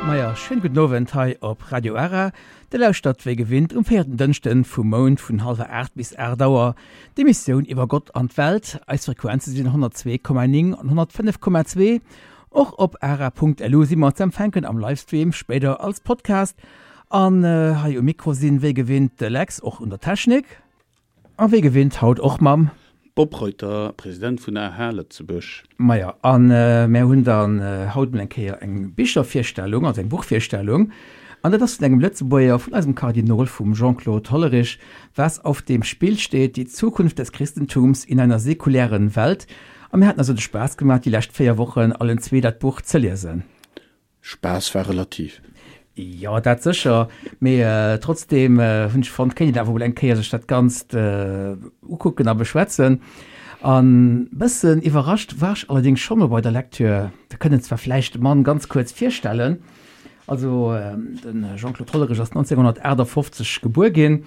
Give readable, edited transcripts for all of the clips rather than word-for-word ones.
Maja, schéin gudden Owend hei op Radio Ara. Dir lauschtert wéi gewinnt um véierten Dënschden vum Mount vun hallwer 8 bis 8 Auer d'Emissioun iwwer Gott an d'Welt. Eis Frequenze sinn 102,9 an 105,2. Och op ara.lu si mer ze empfänken am Livestream, spéider als Podcast. An hei um Mikro sinn wéi gewinnt de Lex, och un der Technik. A wéi gewinnt haut och mam. Bob Reuter, President vun AH Lëtzebuerg. Maja, a mär hunn dann haut mol eng Kéier eng Bichervirstellung, also eng Buchvirstellung, an dat ass vun engem Lëtzebuerger, vun eisem Kardinol, vum Jean-Claude Hollerich, Was auf dem Spiel steht, die Zukunft des Christentums in einer sekulären Welt. A mir haten eis de Spaass gemaach, déi lescht 4 Wochen allen zwee dat Buch ze liesen. Spaass war relativ. Jo, dat sécher, mee trotzdeem hunn ech fonnt, kéint een awer mol eng Kéier sech dat Ganzt ukucken a beschwätzen. An bëssen iwwerrascht war ech allerdéngs scho mol bei der Lecture. Wir kënnen zwar vläicht de Mann ganz kuerz virstellen. Also de Jean-Claude Hollerich ass 1958 gebuer ginn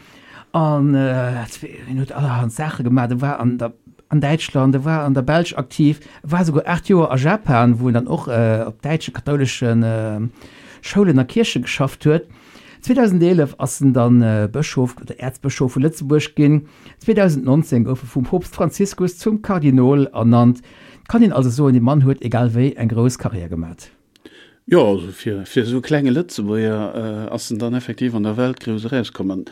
an hien huet allerhand Saache gemaach. E war an der an Däitschland, e war an der Belsch aktiv, e war souguer 8 Joer a Japan, wou en dann och op däitsche kathoulesche Schoulen a Kierche geschafft huet. 2011 ass en dann Bëschof oder Äerzbëschof vu Lëtzebuerg ginn. 2019 gouf e vum Poopst Franziskus zum Kardinol ernannt. Et kann een also soen, dee Mann huet egal wéi eng grouss Karriär gemat. Jo, also fir fir esou e klenge Lëtzebuerger ass en dann effektiv an der Welt grouss erauskomm. An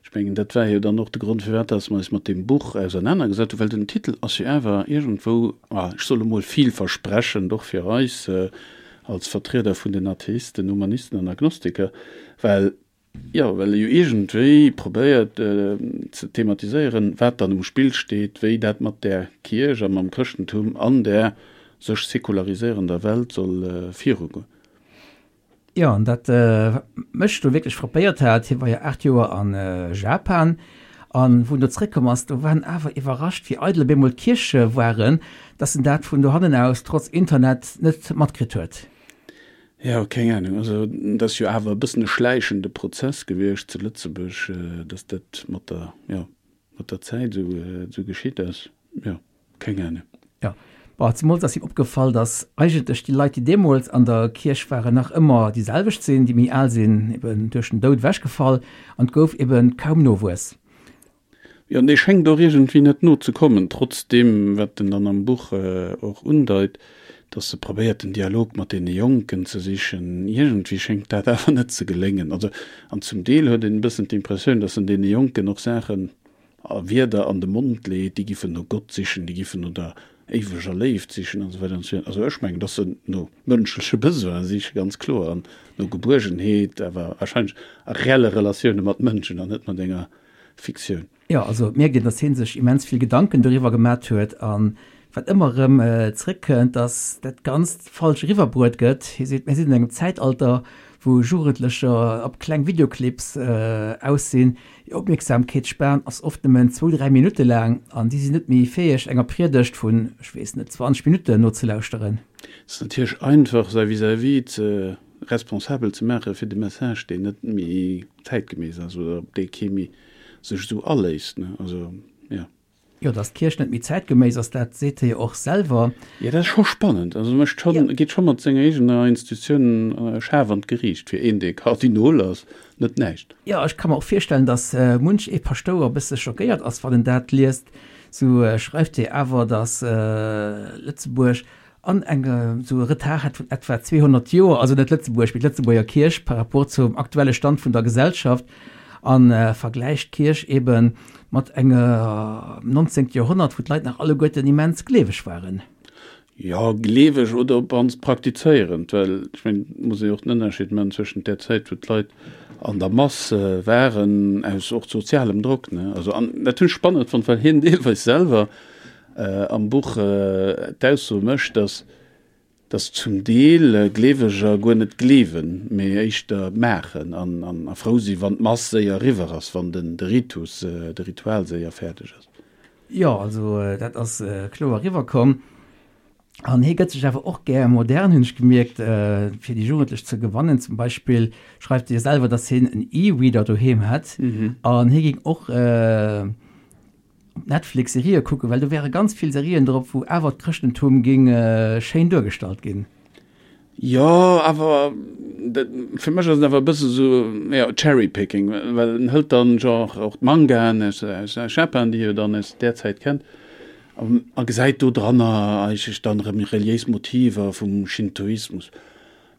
ech mengen, dat war jo dann och de Grond, firwat dass mer eis mat deem Buch ausernanergesat hunn, well den Titel ass jo awer iergendwou, ech soll emol vielversprechend, och fir eis als Vertrieder vun den Atheisten, Humanisten an Agnostiker, well Jo, well e jo iergendwéi probéiert ze thematiséieren, wat dann um Spill steet, wéi dat mat där Kierch a mam Chrëschtentum an där sech sekulariséierender Welt soll virugoen. Jo, an dat wat mech do wierklech frappéiert hat, hie war jo 8 Joer a Japan, an wou en do zréckkomm ass, do war en awer iwwerrascht, wéi eidel op eemol d'Kierche waren, dass en dat vun dohannen aus trotz Internet net matkritt huet. Jo, keng Ahnung. Also et ass jo awer e bëssen e schläichende Prozess gewiescht zu Lëtzebuerg, datt dat mat der, jo, mat der Zäit esou, esou geschitt ass. Jo, keng Ahnung. Jo, bon, zemools ass him opgefall, datt eigentlech déi Leit, déi deemools an der Kierch waren, nach ëmmer déi selwecht sinn, déi méi al sinn eben duerch den Doud ewechgefall an et gouf eben kaum Nowuess. Jo, an dee schéngt och iergendwéi net no ze kommen, trotz deem, wat en dann am Buch och undeit, dass e probéiert, den Dialog mat deene Jonken ze sichen. Iergendwéi schéngt dat awer net ze geléngen. Also, an zum Deel huet een e bëssen d'Impressioun, dass en deene Jonken och Saachen a Wierder an de Mond leet, déi giffen no Gott sichen, déi giffen no der éiweger Léift sichen an esou weider an esou virun. Also ech mengen, dass se no mënschleche Besoine sichen, ganz kloer, an no Gebuergenheet, awer warscheinlech a reelle Relatioune mat Mënschen an net mat enger Fiktioun. Jo, also et mierkt een, dass hie sech immens vill Gedanken doriwwer gemat huet an wat ëmmer erëm zréckkënnt, dass dat Ganzt falsch eriwwerbruet gëtt. Hie seet, mir sinn an engem Zäitalter, wou Jugendlecher op kleng Videoclips aus sinn. Hir Opmierksamkeetsspan ass oft nëmmen zwou, dräi Minutte laang an si sinn net méi fäeg, enger Priedegt vun, ech weess net, 20 Minutten nozelauschteren. Et ass natierlech einfach, säi Vis-à-vis ze responsabel ze maache fir de Message, deen net méi zäitgemäss ass oder op dee kee méi sech esou aléisst, ne? Also, jo. Jo, datt d'Kierch net méi zäitgeméiss ass, dat seet hie jo och selwer. Jo, dat ass scho spannend. Also e mécht schonn, e geet scho mat senger eegener Institutioun schaarf an d'Geriicht. Fir een, dee Kardinol ass, net näischt. Jo, ech ka mer och virstellen, datt munch ee Paschtouer e bësse schockéiert ass, wann en dat liest. Sou schreift hie awer, datt Lëtzebuerg an eng esou e Retard hätt vun etwa 200 Joer, also net Lëtzebuerg, mee d'Lëtzebuerger Kierch par rapport zum aktuelle Stand vun der Gesellschaft a vergläicht d'Kierch ebe mat engem 19. Joerhonnert, wou d'Leit nach alleguerten immens gleeweg waren. Jo, gleeweg oder op d'mannst praktizéierend, well ech mengen, et muss ee jo och den Ënnerscheed maachen zwëschent där Zäit, wou d'Leit an der Mass waren, aus och sozialem Drock, ne, also an dat hunn ech spannend fonnt, well hien deelweis selwer am Buch d'Ausso mécht, dass dass zum Deel Gleeweger guer net gleewen, mee éischter maachen an a frou sinn, wann d'Mass séier eriwwer ass, wann den de Ritus, de Ritual séier fäerdeg ass. Jo, also dat ass kloer eriwwerkomm. An hie gëtt sech awer och gär modern, hunn ech gemierkt, fir déi Jugendlech ze gewannen. Zum Beispill schreift hie selwer, dass hien en E-Reader doheem hätt an hie géing och Op Netflix Serië kucken, well do wäre ganz vill Serien drop, wou awer d'Chrëschtentum géing schéin duergestallt ginn. Jo, awer. Fir mech ass et awer e bësse sou, jo, Cherry-picking, well en hëlt dann genre och d'Mangaen aus aus Japan, déi e jo dann aus där Zäit kennt, a gesäit do dranner eigentlech dann erëm reliéis Motiver vum Shintoismus.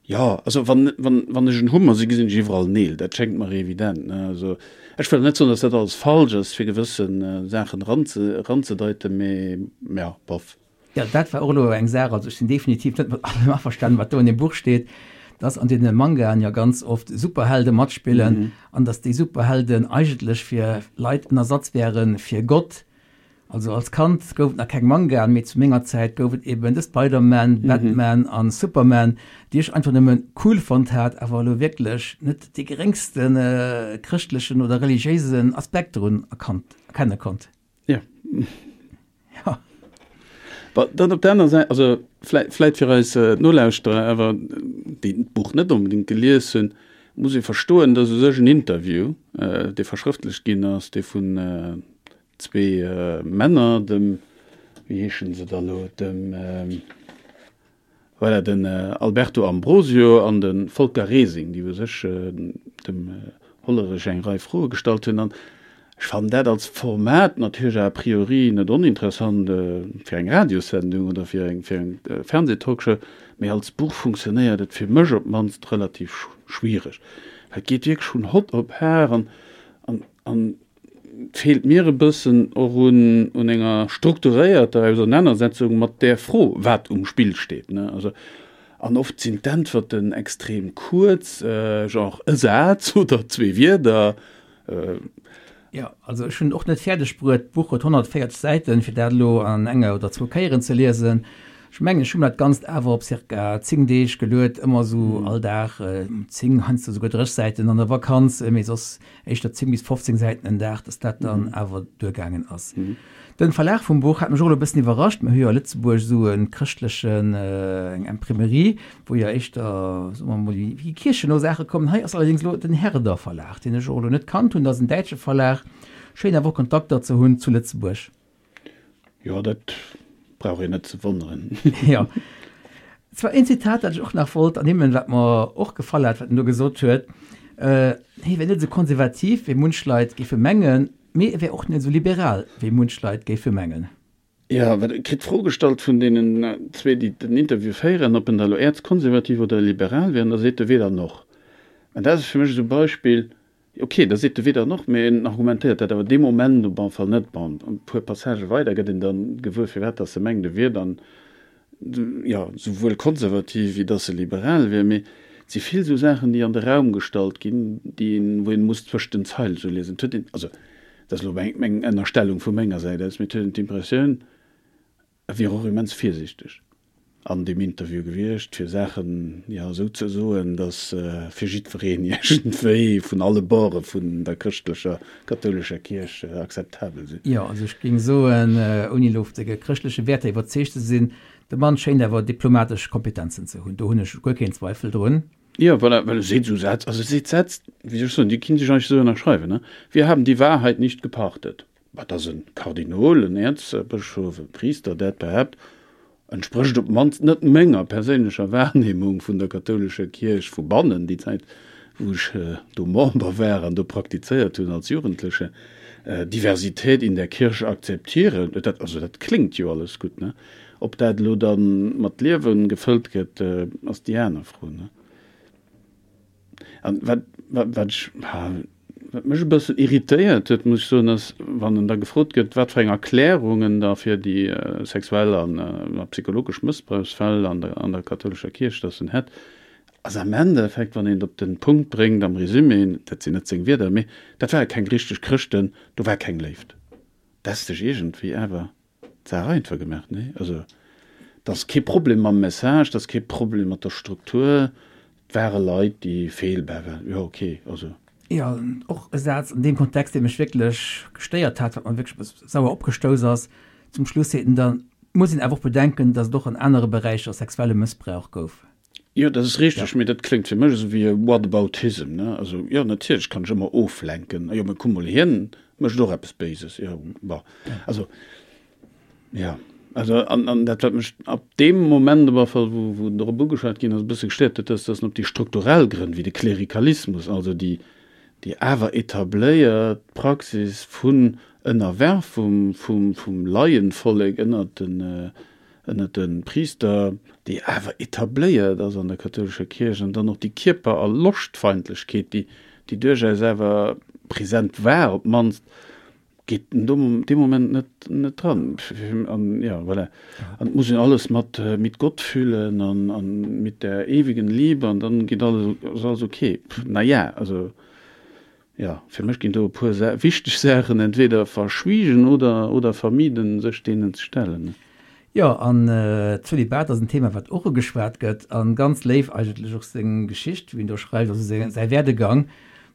Jo, also wann, wann, wann ech en Hummer si, gesinn ech iwwerall Neel, dat schéngt mer evident, ne. Also ech wëll net soen, datt dat alles falsch ass, fir gewësse Saachen eranze, eranzedeiten, mee ja, bof. Jo, dat war och elo eng Saach, also ech sinn definitiv net mat allem averstanen, wat do an deem Buch steet, dass an deene Mangaen jo ganz oft Superhelde matspillen an dass déi Superhelden eigentlech fir Leit en Ersatz wäre fir Gott. Also als Kand gouf et nach keng Mangaen, mee zu menger Zäit gouf et eben de Spider-Man, Batman an Superman, déi ech einfach nëmme cool fonnt hat, awer elo wierklech net dee geréngste chrëschtlechen oder religiéisen Aspekt drun erkannt, erkenne konnt. Ja. Ja. Bon, dann op der aner Säit, also vläit, vläit fir eis Nolauschterer awer, déi d'Buch net onbedéngt gelies hunn, muss ee verstoen, dass u sech en Interview, dee verschrëftlecht ginn ass, dee vun zwee Männer, dem, wéi heeschen se da lo, dem, Voilà, den Alberto Ambrosio an de Volker Resing, déi u sech dem Hollerich eng Rei Froe gestallt hunn. An ech fannen dat als Format natierlech a priori net oninteressant fir eng Radiossendung oder fir eng Fernseh-Talkshow, mee als Buch funktionéiert et fir mech op d'mannst relativ schwiereg. Well et geet wierklech vun hott op har an an Et feelt mir e bëssen och un un enger strukturéierter Ausernanersetzung mat där Fro, wat um Spill steet, ne. Also, an oft sinn d'Äntwerten extrem kuerz, genre e Saz oder zwee Wierder. Jo, also ech hunn och net fäerdeg bruet, d'Buch huet 140 Säiten, fir dat elo an enger oder zwou Kéieren ze liesen. Ech mengen, ech hu mer dat Ganzt awer op circa 10 Deeg geluet, ëmmer esou all Dag 10, heiansdo souguer 30 Säiten an der Vakanz, mee soss éischter 10 bis 15 Säiten en Dag, dass dat dann awer duergaangen ass. Den Verlag vum Buch hat mech och elo e bëssen iwwerrascht. Mir hu jo a Lëtzebuerg esou e chrëschtlechen, eng Imprimerie, wou jo éischter, soe mer emol, déi kiercheno Saache kommen. Hei ass allerdéngs elo den Herder Verlag, deen ech och elo net kannt hunn. Dat ass en däitsche Verlag. Schéin awer och Kontakter ze hunn zu Lëtzebuerg. Jo, dat brauch een net ze wonneren. Jo. Zwar een Zitat, dat ech och nach wollt ernimmen, wat mer och gefall hat, wat en do gesot huet, Hie wär net esou konservativ, wéi munch Leit géife mengen, mee e wär och net esou liberal, wéi munch Leit géife mengen. Jo, well e kritt d'Fro gestallt vun deenen zwee, déi den Interview féieren, ob en da elo äerzkonservativ oder liberal wier, an da seet e weder noch. An dat ass fir mech esou e Beispill, Ok, da seet de weder noch, mee en argumentéiert dat awer dee Moment op alle Fall net. Bon, e puer Passagë weider gëtt een dann gewuer, firwat dass e mengt, e wier dann, jo, souwuel konservativ wéi dass e liberal wier. Mee et si vill esou Saachen, déi an de Raum gestallt ginn, déi een, wou een muss zwëscht den Zeile sou liesen. Et huet een, also dat ass elo meng, meng Ënnerstellung vu menger Säit aus, mee et huet een d'Impressioun, e wier och immens virsiichteg an deem Interview gewiescht, fir Saachen, jo, esou ze soen, datt fir jiddwereen iergendwéi vun alle Borde vun der chrëschtlecher, kathoulescher Kierch akzeptabel sinn. Jo, also ech géing soen, ouni elo op de chrëschtleche Wäerter iwwerzeegt ze sinn, de Mann schéint awer diplomatesch Kompetenzen ze hunn, do hunn ech guer keen Zweifel drun. Jo, voilà, well e seet esou Sätz, also e seet Sätz, wéi soll ech soen, déi kinnt ech eigentlech esou ënnerschreiwen, ne, Wir haben die Wahrheit nicht gepachtet. Mä dass e Kardinol, en Äerzbëschof, e Priister dat behaapt, entsprécht op d'mannst net menger perséinlecher Wahrnehmung vun der kathoulescher Kierch vu bannen, déi Zäit wou ech do Member war an do praktizéiert hunn als Jugendleche, Diversität in der Kirche akzeptieren, dat, also dat kléngt jo alles gutt, ne? Ob dat elo da mat Liewe gefëllt gëtt, ass déi aner Fro, ne? An wat, wat, wat ech, wat mech e bëssen irritéiert huet, muss ech soen, ass, wann en da gefrot gëtt, wat fir eng Erklärung en da fir déi sexuell an psychologesch Mëssbrauchsfäll an der, an der kathoulescher Kierch dass en hätt, ass am Endeffekt, wann een et op den Punkt bréngt am Résumé, dat sinn net seng Wierder, mee dat ware keng richteg Chrëschten, do war keng Léift. Dat ass sech iergendwéi awer D'Saach einfach gemaach, nee? Also, et ass kee Problem mam Message, et ass kee Problem mat der Struktur, et ware Leit, déi feelbar waren. Jo, okay, also. Jo, och e Saz an deem Kontext, dee mech wierklech gestéiert hat, wat mer wierklech e bësse sauer opgestouss ass, Zum Schluss seet en dann, Et muss een awer och bedenken, datt et och an anere Beräicher sexuelle Mëssbrauch gouf. Jo, dat ass richteg, mee dat kléngt fir mech esou wéi e Whataboutism, ne? Also, jo, natierlech kann ech ëmmer oflenken, jo, mee kuck mol, hien mécht och eppes Béises, jo, bon, also, jo. Also an, an dat wat mech ab deem Moment op alle Fall, wou, wou drop ugeschwat ginn ass, e bësse gestéiert huet, ass, dass en op déi strukturell Grënn, wéi de Klerikalismus, also déi, déi awer etabléiert Praxis vun Ënnerwerfung vum, vum Laienvollek ënnert den, ënnert de Priister, déi awer etabléiert ass an der kathoulescher Kierch, an dann och déi Kierper a Loschtfeindlechkeet, déi, déi duerchaus awer present war, op d'mannst, geet en do dee Moment net, net dran. An jo, voilà. An et muss een alles mat mit Gott fühlen an, an mit der ewigen Liebe an dann geet alles, ass alles ok. Na ja, also jo, fir mech ginn do e puer wichteg Saachen entweder verschwiegen oder, oder vermieden, sech deenen ze stellen. Jo, an Zölibat ass en Thema, wat och ugeschwat gëtt, a ganz léif eigentlech och seng Geschicht, wéi en do schreift, also säi Werdegang,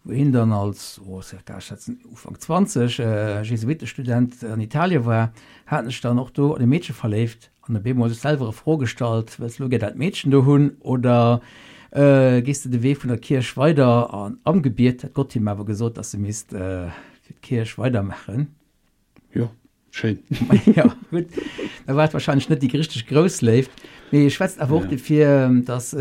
wou hien dann als, oh, circa, ech schätzen Ufank 20, Jesuittestudent an Italien war, hat sech dann och do an e Meedche verléift an op eemol sech selwer e Fro gestallt, Wëlls de lo gär dat Meedchen do hunn oder gees de de Wee vun der Kierch weider? An am Gebiet hätt Gott him awer gesot, dass e misst fir d'Kierch weidermaachen. Jo. Schéin. Ja, gutt. Da war et wahrscheinlech net déi richteg grouss Léift. Mee e schwätzt awer och dofir, datt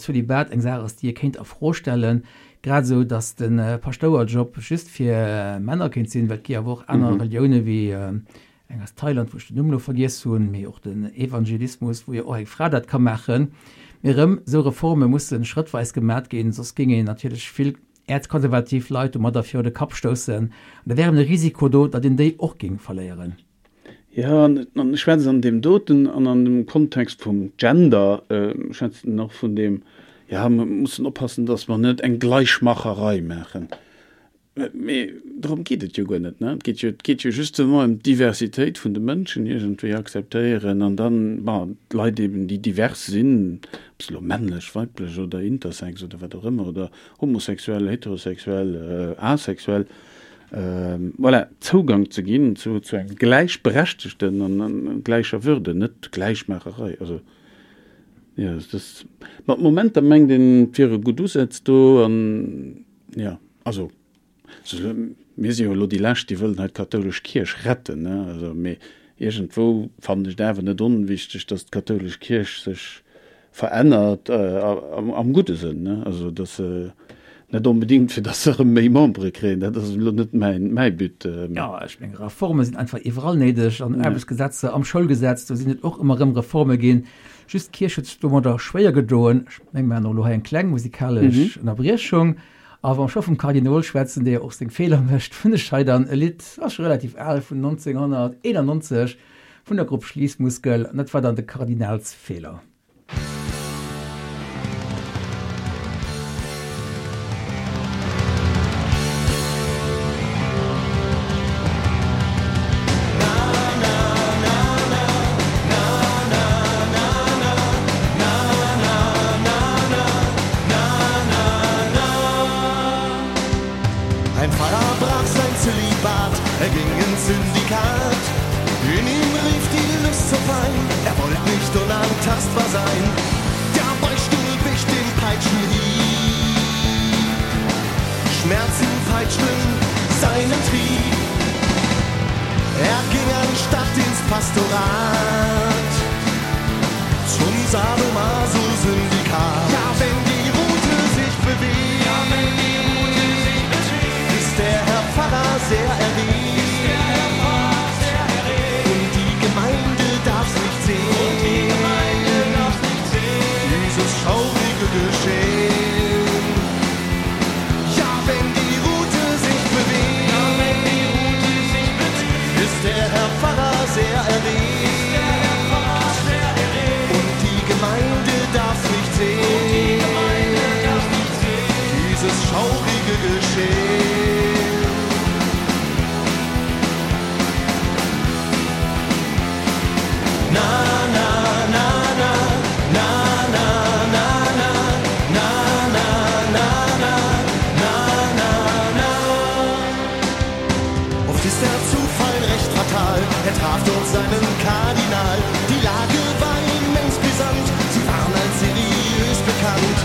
Zölibat eng Saach ass, déi ee kéint a Fro stellen. Grad esou, datt de Paschtouerjob just fir Männer kéint sinn, well et gi awer och aner Relioune wéi eng aus Thailand, wou ech den Numm elo vergiess hunn, mee och den Evangelismus, wou jo och eng Fra dat ka maachen. Mee erëm, esou Reforme musse schrëttweis gemat ginn, soss géing een natierlech vill äerzkonservativ Leit domadder viru de Kapp stoussen, an da wär eben de Risiko do, datt een déi och géing verléieren. Jo, an ech schwätze an deem doten an an dem Kontext vum Gender, schwätzen och vun deem, jo, mer mussen oppassen, datt mer net eng Gleichmacherei maachen. Mee dorëm geet et jo guer net, ne? Et geet jo, et geet jo justement ëm d'Diversitéit vun de Mënschen iergendwéi akzeptéieren an dann, bon, d'Leit eben, déi divers sinn, ob se elo männlech, weiblech oder intersex oder wat och ëmmer oder homosexuell, heterosexuell, asexuell, voilà, Zougang ze ginn zu zu engem gläichberechtegten an gläicher Würde, net Gläichmaacherei. Also, jo, dat ass, mat Momenter mengt een, et wiere gutt Usätz do an, jo, also, Mir si jo elo déi Lescht, déi wëllen hei d'kathoulesch Kierch retten, ne? Also, mee iergendwou fannen ech et awer net onwichteg, datt d'kathoulesch Kierch sech verännert, am gudde Sënn, ne? Also, datt se net onbedéngt, fir datt se erëm méi Membere kréien, dat ass elo net mäin, mäi But. Jo, ech mengen, Reforme sinn einfach iwwerall néideg, an Aarbechtsgesetzer, am Schoulgesetz, do sinn et och ëmmer erëm Reforme ginn. Just d'Kierch huet sech domadder schwéier gedoen. Ech menge mer maachen och elo hei eng kleng musikalesch Ënnerbriechung. A wa mer scho vum Kardinol schwätzen, dee jo och seng Feeler mécht, hunn ech hei dann e Lidd, ass scho relativ al, vun 1991, vun der Grupp Schliessmuskel, an dat war dann de Kardinalsfeeler. Ein Pfarrer brach sein Zölibat, er ging ins Syndikat. In ihm rief die Lust zur Pein, er wollte nicht unantastbar sein. Der Beichtstuhl wich dem Peitschenhieb. Schmerzen peitschten seinen Trieb. Er ging anstatt ins Pastorat zum Sadomaso-Syndikat. Ja, wenn die Rute sich bewegt, ja, wenn die Rute sich bewegt, ist der Herr Pfarrer sehr erregt. Ist der Herr Pfarrer sehr erregt. Und die Gemeinde darf's nicht sehen. Und die Gemeinde darf's nicht sehen. Dieses schaurige Geschehen. Ja, wenn die Rute sich bewegt, ja, wenn die Rute sich bewegt, ist der Herr Pfarrer sehr erregt. Ist der Herr Pfarrer sehr erregt. Und die Gemeinde darf's nicht sehen. Und die Gemeinde darf's nicht sehen. Dieses schaurige Geschehen. Na, na, na, na, na, na, na, na, na, na, na, na, na, na, na. Oft ist der Zufall recht fatal, er traf dort seinen Kardinal. Die Lage war immens brisant, sie waren als seriös bekannt.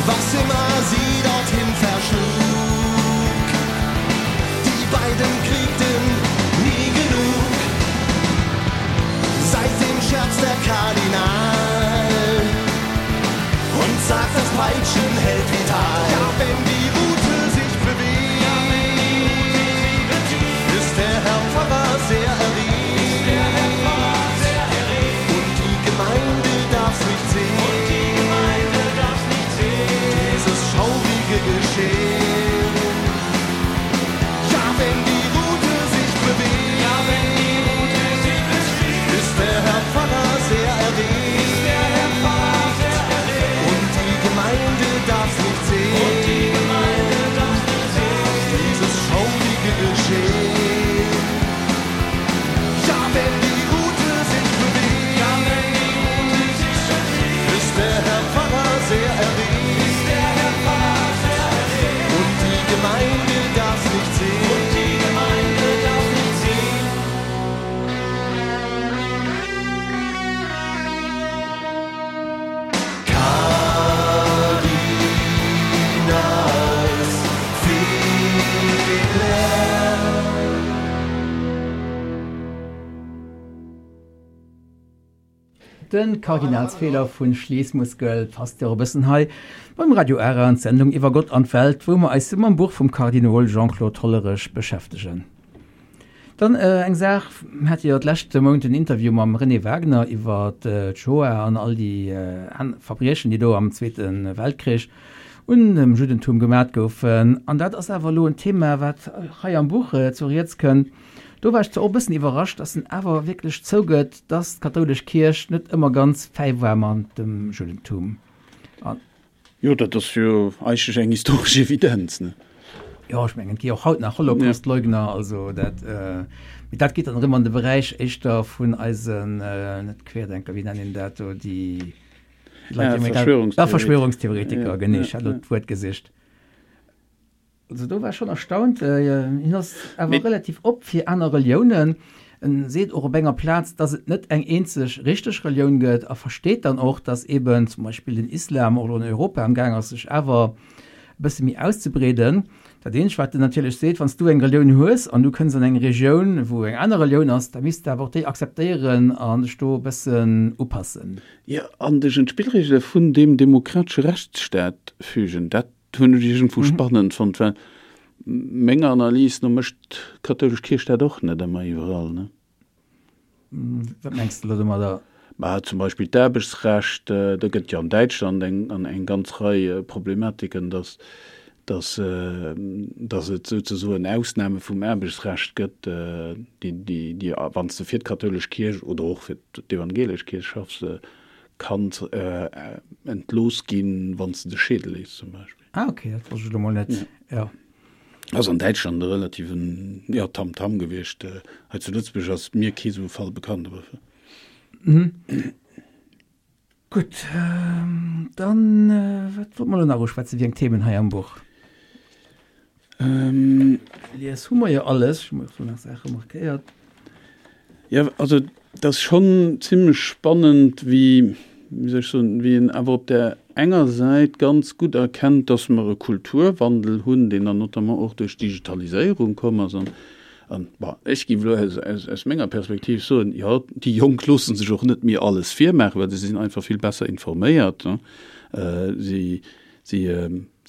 Was immer sie dorthin verschlug, die beiden kriegten nie genug. De Kardinalsfeeler vu Schließmuskel passt jo och e bëssen hei beim Radio Ara an d'Sendung iwwer Gott an d'Welt, wou mer eis mam Buch vum Kardinol Jean-Claude Hollerech beschäftegen. Dann eng Saach, Mir hate jo d'leschte Mount en Interview mam René Wagner iwwer d'Shoah an all déi Verbriechen, déi do am Zweete Weltkrich un dem Juddentum gemat goufen. An dat ass awer elo en Thema, wat hei am Buch zu Rieds kënnt. Do war ech zwar och e bëssen iwwerrascht, dass en awer wierklech zougëtt, dass d'kathoulesch Kierch net ëmmer ganz fäi war mat dem Juddentum. An. Jo, dat ass jo eigentlech eng historesch Evidenz, ne? Jo, ech mengen, et gi och haut nach Holocaustleugner, also dat, mee dat geet dann erëm an de Beräich éischter vun eisen, net Querdenker, wéi nennen een dat do, déi Leit, déi Verschwörungstheoretiker. Verschwörungstheoretiker, genee, ech hat elo d'Wuert gesicht. Also do war ech schon erstaunt. Hien ass awer relativ op fir aner Reliounen. En seet och op enger Plaz, dass et net eng eenzeg richteg Relioun gëtt a versteet dann och, dass eben zum Beispill den Islam och elo an Europa am Gaang ass sech awer e bësse méi auszebreeden. Dat eenzegt wat en natierlech seet, wann s du eng Relioun hues an du kënns an eng Regioun wou eng aner Relioun ass, da misst de awer och déi akzeptéieren an dech do e bëssen upassen. Jo, an dech un d'Spillregele vun deem demokratesche Rechtsstaat fügen. Dat hunn ech iergendwou spannend fonnt, well menger Analys no mécht d'kathoulesch Kierch dat och net ëmmer iwwerall, ne? Wat mengs de elo domadder? Mä zum Beispill d'Aarbechtsrecht, do gëtt jo an Däitschland eng eng ganz Rei Problematiken, datt datt datt et souzesoen Ausname vum Aarbechtsrecht gëtt, déi déi déi wann s de fir d'kathoulesch Kierch oder och fir d'evangelesch Kierch schaffs, Kanns entlooss ginn, wann s de dech scheede léiss zum Beispill. Ah ok, dat wosst ech elo mol net, jo. Ass an Däitschland e relativen, jo, Tamtam gewiescht. Hei zu Lëtzebuerg ass mir kee sou e Fall bekannt, awer. Gutt, dann, wat wollte mer elo nach uschwätzen, wéi eng Themen hei am Buch? Lies hu mer jo alles, ech hu mer och do nach Saache markéiert. Jo, also et ass schonn zimlech spannend, wéi, wéi soll ech soen, wéi een awer op där enger Säit ganz gutt erkennt, dass mer e Kulturwandel hunn, deen dann notamment och duerch d'Digitaliséierung komm ass. An, an bon, ech géif elo aus, aus, aus menger Perspektiv soen, jo, déi Jonk loosse sech och net méi alles virmaachen, well se sinn einfach vill besser informéiert. Si, si,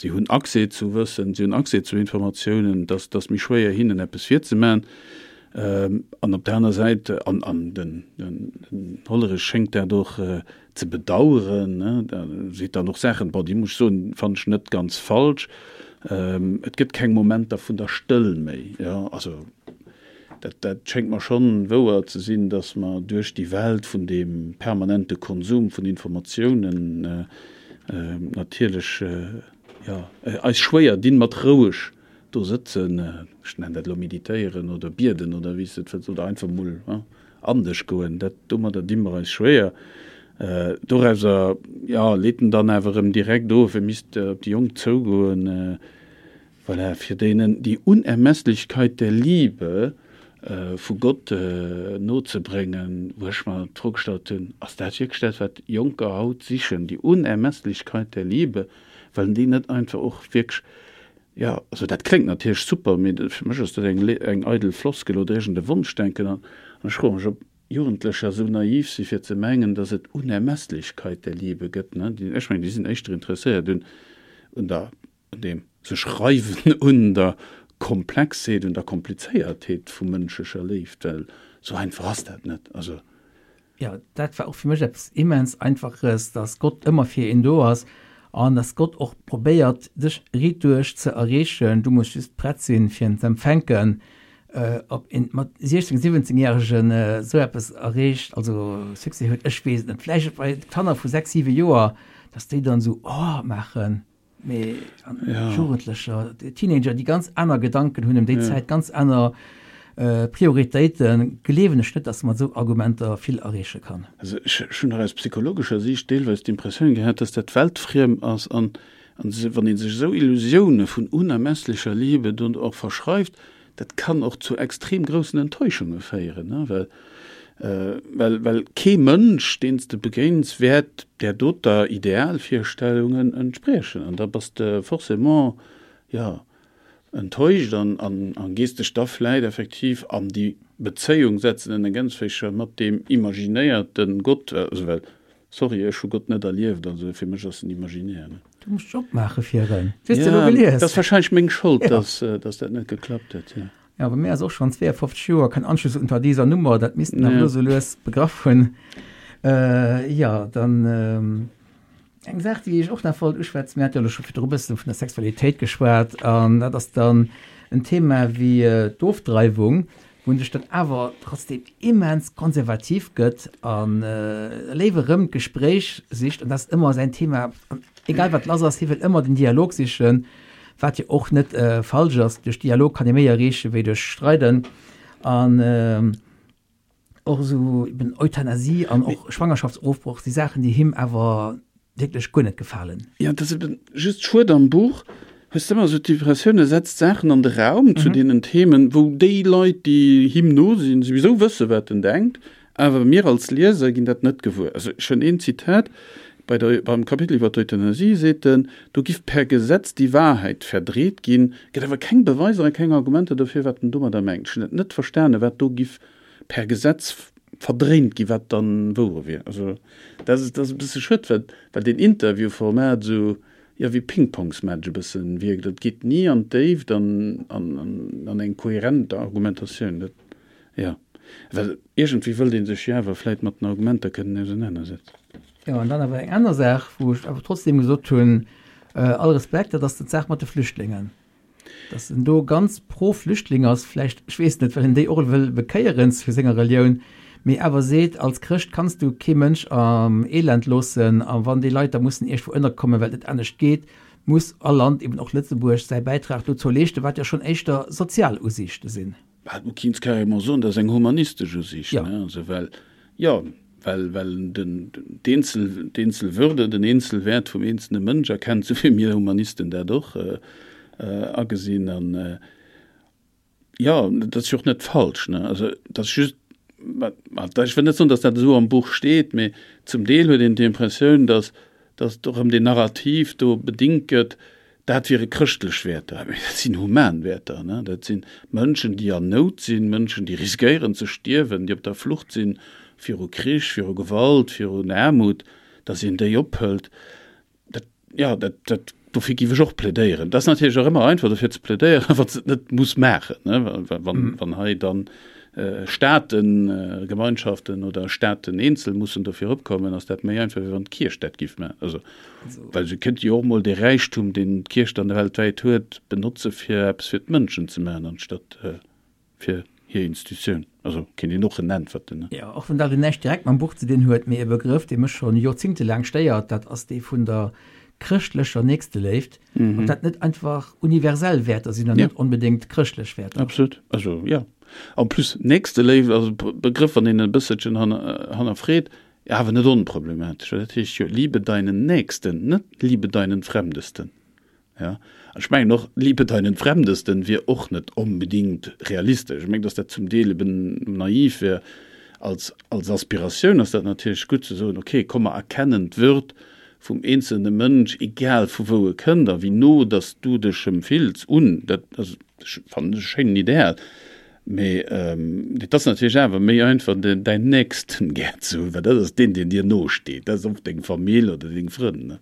Si hunn Accès zu Wëssen, si hunn Accès zu Informatiounen, et ass, et ass méi schwéier hinnen eppes virzemaachen. An op der aner Säit, an, an den, den Hollerich schéngt dat och ze bedauern, ne, da seet dann och Saachen, bon, déi muss ech soen, fannen ech net ganz falsch, et gëtt keng Momenter vun der Stëll méi, jo, also dat, dat schéngt mer schonn wouer ze sinn, datt mer duerch déi Welt vun deem permanente Konsum vun Informatiounen, natierlech jo eis schwéier dinn mat roueg do sëtzen, ech nennen dat elo meditéieren oder bieden oder wéi s de et wëlls, oder einfach mol an dech goen, dat domadder di mer eis schwéier. Dorauser jo leet en dann awer erëm direkt of, e misst op déi Jonk zougoen. Voilà, fir deenen die Unermesslichkeit der Liebe vu Gott nozebréngen, wou ech mer d'Fro gestallt hunn, Ass dat wierklech dat, wat Jonker haut sichen, die Unermesslichkeit der Liebe? Wëllen déi net einfach och wierklech, jo, also dat kléngt natierlech super, mee fir mech ass dat eng eng eidel Floskel oder iergend e Wonschdenken. An ech froe mech, ob Jugendlecher esou naiv si fir ze mengen, dass et Unermesslichkeit der Liebe gëtt. Ech mengen, déi sinn éischter interesséiert un der un deem sech reiwen un der Komplexheet, un der Komplizéiertheet vu mënschlecher Léift, well sou einfach ass dat net. Also. Jo, dat war och fir mech eppes immens Einfaches, dass Gott ëmmer fir een do ass an dass Gott och probéiert, dech riitduerch ze erreechen. Du muss just prett sinn, fir en z'empfänken. Ob een mat 16, 17 Järegen esou eppes erreecht, also Succès huet, ech weess et net. Vläicht bei Kanner vu 6, 7 Joer, dass déi dann esou Oh maachen. Mee Jugendlecher, Teenager, déi ganz aner Gedanken hunn ëm déi Zäit, ganz aner Prioritéiten, gleewen ech net, datt mat esou Argumenter vill erreeche kann. Also ech hunn nach aus psychologescher Siicht deelweis d'Impressioun gehat, datt dat weltfriem ass an wann ee sech esou Illusioune vun unermesslecher Liebe do och verschreift, Dat kann och zu extrem groussen Enttäuschunge féieren, ne, well, well, well kee Mënsch, deen s de begéins, wäert där doter Idealvirstellungen entspriechen. An da bass de forcément, jo, enttäuscht an an gees dech da vläit effektiv an déi Bezéiung setzen, en Ergänzféicher mat deem imaginéierte Gott, also well, sorry, ech hu Gott net erlieft, also fir mech ass en imaginär, ne. Du muss dech opmaache fir en. Du hues se elo gelies. Dat ass wahrscheinlech meng Schold, dass dass dat net geklappt huet, jo. Jo, bei mir ass och schonn 52 Joer kein Anschluss unter dieser Nummer, dat misst en awer elo sou lues begraff hunn. Jo, dann. Eng Saach, déi ech och nach wollt uschwätzen, mir hate jo elo scho virdru e bësse vun der Sexualitéit geschwat, an dat ass dann en Thema wéi d'Ofdreiwung, wou en sech dann awer trotzdem immens konservativ gëtt a léiwer erëm d'Gespréich sicht, an dat ass ëmmer säin Thema, egal wat lass ass, hie wëll ëmmer den Dialog sichen, wat jo och net falsch ass, duerch Dialog kann ee méi erreeche wéi duerch Streiden. An. Och esou eben Euthanasie an och Schwangerschaftsofbroch si Saachen, déi him awer wierklech guer net gefalen. Jo, et ass eben just schued, am Buch hues de ëmmer esou d'Impressioun, e setzt Saachen an de Raum zu deenen Themen, wou déi Leit, déi him no sinn, souwisou wësse wat en denkt, awer mir als Lieser ginn dat net gewuer. Also ech hunn een Zitat, bei der, beim Kapitel iwwer d'Euthanasie seet en, do giff per Gesetz die Wahrheit verdreht ginn, gëtt awer keng Beweiser a keng Argumenter dofir, wat en domadder mengt. Ech hunn et net verstanen, wat do giff per Gesetz verdréint ginn, wat dann wouer wier. Also dat ass, dat ass e bësse schued, well, well deen Interviewformat esou, jo, wéi Pingpongsmatch e bëssen wierkt. Et geet ni an d'Déift an, an, an eng kohärent Argumentatioun. Dat, jo, well iergendwéi wëllt ee sech jo awer vläit mat den Argumenter kënnen ausenanersetzen. Jo, an dann awer eng aner Saach, wou ech awer trotzdem gesot hunn, all Respekt, dat ass d'Saach mat de Flüchtlingen. Dass en do ganz pro Flüchtling ass, vläicht, ech weess net, well en déi och wëll bekéieren zu senger Relioun, mee awer seet, als Chrëscht kanns du kee Mënsch am Elend loossen a wann déi Leit da mussen iergendwou ënnerkommen, well et net anescht geet, muss all Land, eben och Lëtzebuerg, säi Bäitrag dozou leeschten, wat jo schonn éischter sozial Usiichte sinn. Bah, du kinns carrément soen, dat ass eng humanistesch Usiicht, ne? Also well, jo, well, well en den, d'Eenzel, d'Eenzelwürde, den Eenzelwäert vum eenzelne Mënsch erkennt, esou wéi mir Humanisten dat och agesinn. An, jo, dat ass jo och net falsch, ne? Also dat ass just, ech wëll net soen, datt dat esou am Buch steet, mee zum Deel huet een d'Impressioun, datt, datt och erëm deen Narrativ do bedingt gëtt, Dat wiere chrëschtlech Wäerter, mee dat sinn human Wäerter. Dat si Mënschen, déi an Nout sinn, Mënschen, déi riskéieren ze stierwen, déi op der Flucht sinn viru Krich, viru Gewalt, virun Aarmut, datt een déi ophëlt. Dat, jo, dat, dat, dofir géif ech och plädéieren. Dat ass natierlech och ëmmer einfach dofir ze plädéieren, wann s de et net muss maachen, wann, wann hei dann Staaten, Gemeinschaften oder Staaten eenzel mussen dofir opkommen, ass dat méi einfach, wéi wann d'Kierch dat géif maachen. Also, well se kéint jo och mol dee Räichtum, deen d'Kierch dann weltwäit huet, benotze fir eppes fir d'Mënschen ze maachen, anstatt fir hir Institutioun. Also kéint een och en äntwerten, ne? Jo, och wann dat elo näischt direkt mam Buch ze dinn huet, mee e Begrëff, dee mech schonn joerzingtelaang stéiert, dat ass dee vun der chrëschtlecher Nächsteléift, ob dat net einfach universell Wäerter sinn an net onbedéngt chrëschtlech Wäerter. Absolut, also jo. En plus Nächsteléift ass e Begrëff, wann een e bësselchen hannerfreet, awer net onproblematesch, well dat heescht jo liebe deinen Nächsten, net liebe deinen Fremdesten. Ja, an ech mengen och, liebe deinen Fremdesten wier och net onbedéngt realistesch. Ech mengen, datt dat zum Deel eben naiv wär. Als, als Aspiratioun ass dat natierlech gutt ze soen, okay, komm mer erkennen d'Würd vum eenzelne Mënsch, egal vu wou e kënnt a wéi no dass du dech em fills, un. Dat ass, fannen ech, e schéinen Ideal. Mee et ass natierlech awer méi einfach, däin Nächsten gär ze hunn, well dat ass deen, deen dir no steet. Dat ass oft deng Famill oder deng Frënn.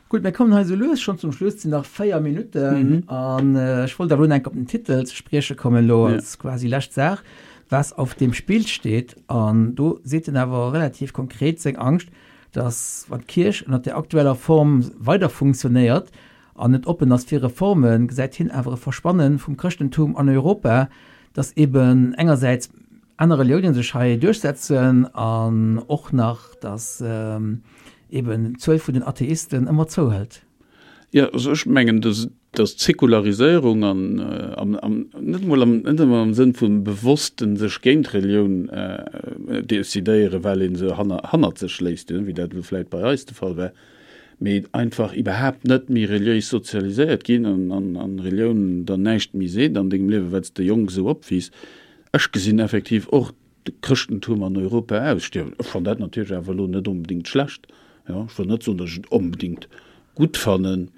Gutt, mir kommen hei esou lues schonn zum Schluss. Et sinn nach 4 Minutten an ech wollt awer elo nach eng Kéier op den Titel ze sprieche kommen, elo als quasi lescht Saach, Was auf dem Spiel steht. An do seet en awer relativ konkret seng Angscht, dass wann d'Kierch ënnert der aktueller Form weider funktionéiert an net oppen ass fir Reformen, gesäit hien awer e Verschwanne vum Chrëschtentum an Europa, dass eben engersäits aner Reliounen sech hei duerchsetzen an och nach, dass eben d'Zuel vun den Atheisten ëmmer zouhëlt. Jo, also ech mengen, dass dass d'Säkulaриséierung an am am net emol am net emol am Sënn vum bewossten sech géint Relioun decidéieren, well ee se hanner hannert sech léisst, wéi dat elo vläit bei eis de Fall war, mee einfach iwwerhaapt net méi reliéis sozialiséiert ginn an an an Relioun der näischt méi seet an dengem Liewen, well s de jonk esou opwiisst. Ech gesinn effektiv och de Chrëschtentum an Europa ausstierwen. Ech fannen dat natierlech awer elo net onbedéngt schlecht. Jo, ech wëll net soen, datt ech et onbedéngt gutt fannen.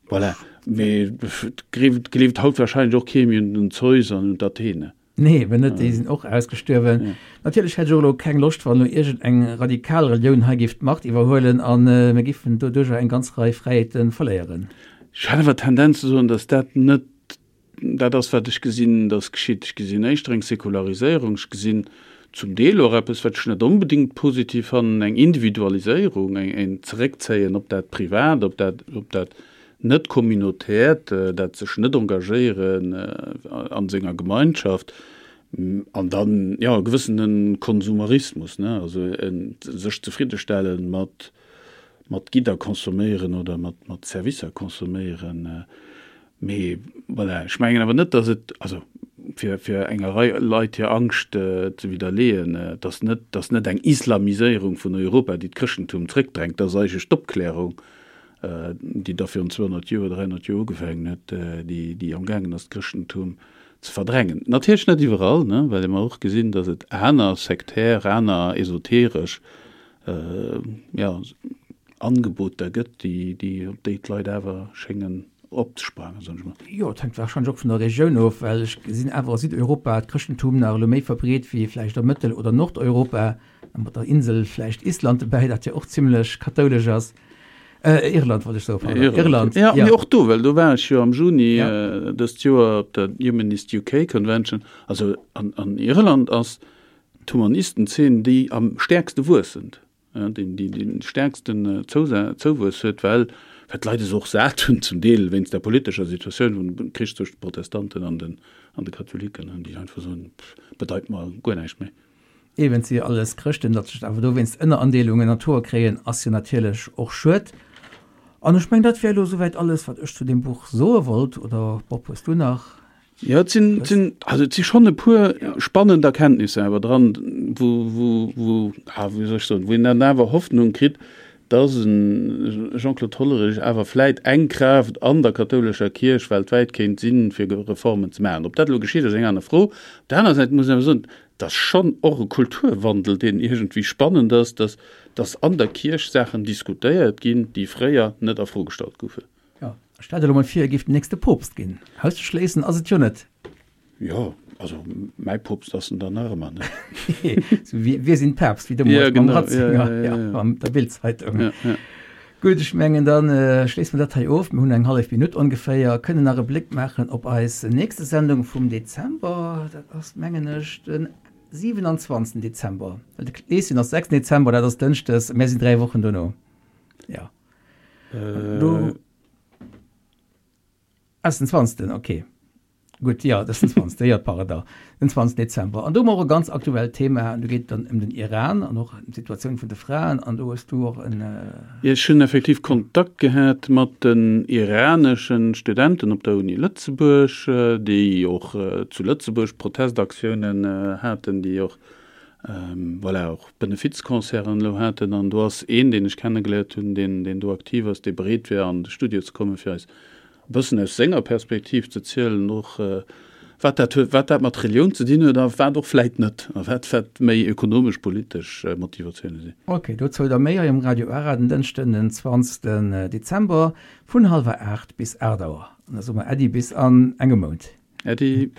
Voilà. Mee et gleeft haut wahrscheinlech och kee méi un den Zeus an un d'Athene. Nee, eben net, déi sinn och ausgestuerwen. Natierlech hätt ech och elo keng Loscht, wann elo iergend eng radikal Relioun hei géif d'Macht iwwerhuelen a mir géifen doduercher eng ganz Rei Fräiheete verléieren. Ech hätt awer d'Tendenz ze soen, datt dat net dat ass, wat ech gesinn, datt geschitt. Ech gesinn éischter eng Säkulariséierung, ech gesinn zum Deel och eppes, wat ech net onbedéngt positiv fannen, eng Individualiséierung, en Zeréckzéien op dat Privat, op dat, op dat net communautärt, dat sech net engagéieren a senger Gemeinschaft, an dann, jo, e gewëssene Konsumerismus, ne, also e sech zefriddestelle mat, mat Gidder consomméieren oder mat, mat Servicer consomméieren. Mee voilà, ech mengen awer net, datt et, also fir, fir enger Rei Leit hir Angscht ze widderleeën, et ass net, et ass net eng Islamiséierung vun Europa, déi d'Chrëschtentum zréckdrängt, dat ass eigentlech d'Opklärung, déi da virun 200 Joer, 300 Joer ugefaangen huet, déi, déi amgaangen ass, d'Chrëschtentum ze verdrängen. Natierlech net iwwerall, ne, well mer och gesinn, datt et aner sektär, aner esoteresch, jo, Angeboter gëtt, déi, déi, op déi d'Leit awer schéngen opzesprangen, soen ech mol. Jo, et hänkt warscheinlech och vun der Regioun of, well ech gesinn awer a Südeuropa d'Chrëschtentum nach elo méi verbreet wéi vläicht a Mëttel oder Nordeuropa. A mat der Insel vläicht Island dobäi, dat jo och zimlech kathoulesch ass. Irland wollt ech soen, pardon. Irland, ja. Mee och do, well do war ech jo am Juni dëst Joer op der Humanist UK Convention. Also an Irland ass d'Humanistenzeen déi am stäerkste wuessend, déi déi de stäerksten Zouwuess huet, well well d'Leit es och sat hunn, zum Deel wéinst der politescher Situatioun vum Krich zwëscht de Protestanten an den an de Katholiken, déi einfach soen, bedeit mer guer näischt méi. Eben, et si jo alles Chrëschten, datt sech awer dowéinst Ënnerandeelungen an d'Hoer kréien, ass jo natierlech och schued. An ech mengen, dat wär elo souwäit alles, wat ech zu deem Buch soe wollt. Oder Bob, hues du nach Jo, et sinn, et sinn, also et si schonn e puer spannend Erkenntnisser awer dran, wou, wou, wou, ah, wéi soll ech soen, wou een dann awer Hoffnung kritt, dass e Jean-Claude Hollerich awer vläit eng Kraaft an der kathoulescher Kierch weltwäit kéint sinn, fir Reformen ze maachen. Ob dat elo geschitt, ass eng aner Fro. Op der aner Säit muss een awer soen, Et ass schonn och e Kulturwandel, deen iergendwéi spannend ass, dass, dass an der Kierch Saachen diskutéiert ginn, déi fréier net a Fro gestallt goufen. Jo, stell der elo mol vir, e géif den nächste Poopst ginn. Auszeschléissen ass et jo net. Jo, also mäi Poopst ass en dann nach ëmmer net. Sou wéi Wir sind Papst, wéi deemools mam Ratzinger, ja, an der Bild-Zeitung. Ja, ja. Gutt, ech mengen, da schléisse mer dat hei of. Mir hunn eng hallef Minutt ongeféier, kënnen nach e Bléck maachen op eis nächste Sendung vum Dezember. Dat ass, mengen ech, de 27. Dezember. Well de Kleeschen ass 6. Dezember, dat ass dënschdes. Mär sinn 3 Wochen dono. Jo. Do ass den 20. Okay. Gutt, jo, dat ass den 20. Jo, pardon, den 20. Dezember. An do hu mer och e ganz aktuellt Thema, an do geet et dann ëm den Iran an och ëm d'Situatioun vun de Fraen. An do hues du och en. Jo, ech hunn effektiv Kontakt gehat mat den iranesche Studenten op der Uni Lëtzebuerg, déi och zu Lëtzebuerg Protestaktiounen haten, déi och, voilà, och Benefizconcerten elo haten. An do ass een, deen ech kennegeléiert hunn, deen, deen do aktiv ass, dee bereet wär, an de Studio ze kommen, fir eis e bëssen aus senger Perspektiv ze zielen, och wat dat huet, wat dat mat Relioun ze dinn huet a wat och vläit net, a wat wat méi ökonomesch, politesch Motivatioune sinn. Ok, dozou da méi hei um Radio Ara den Dënschden den 20 Dezember vun hallwer 8 bis 8 Auer. An da soe mer Äddi bis an engem Mount. Äddi.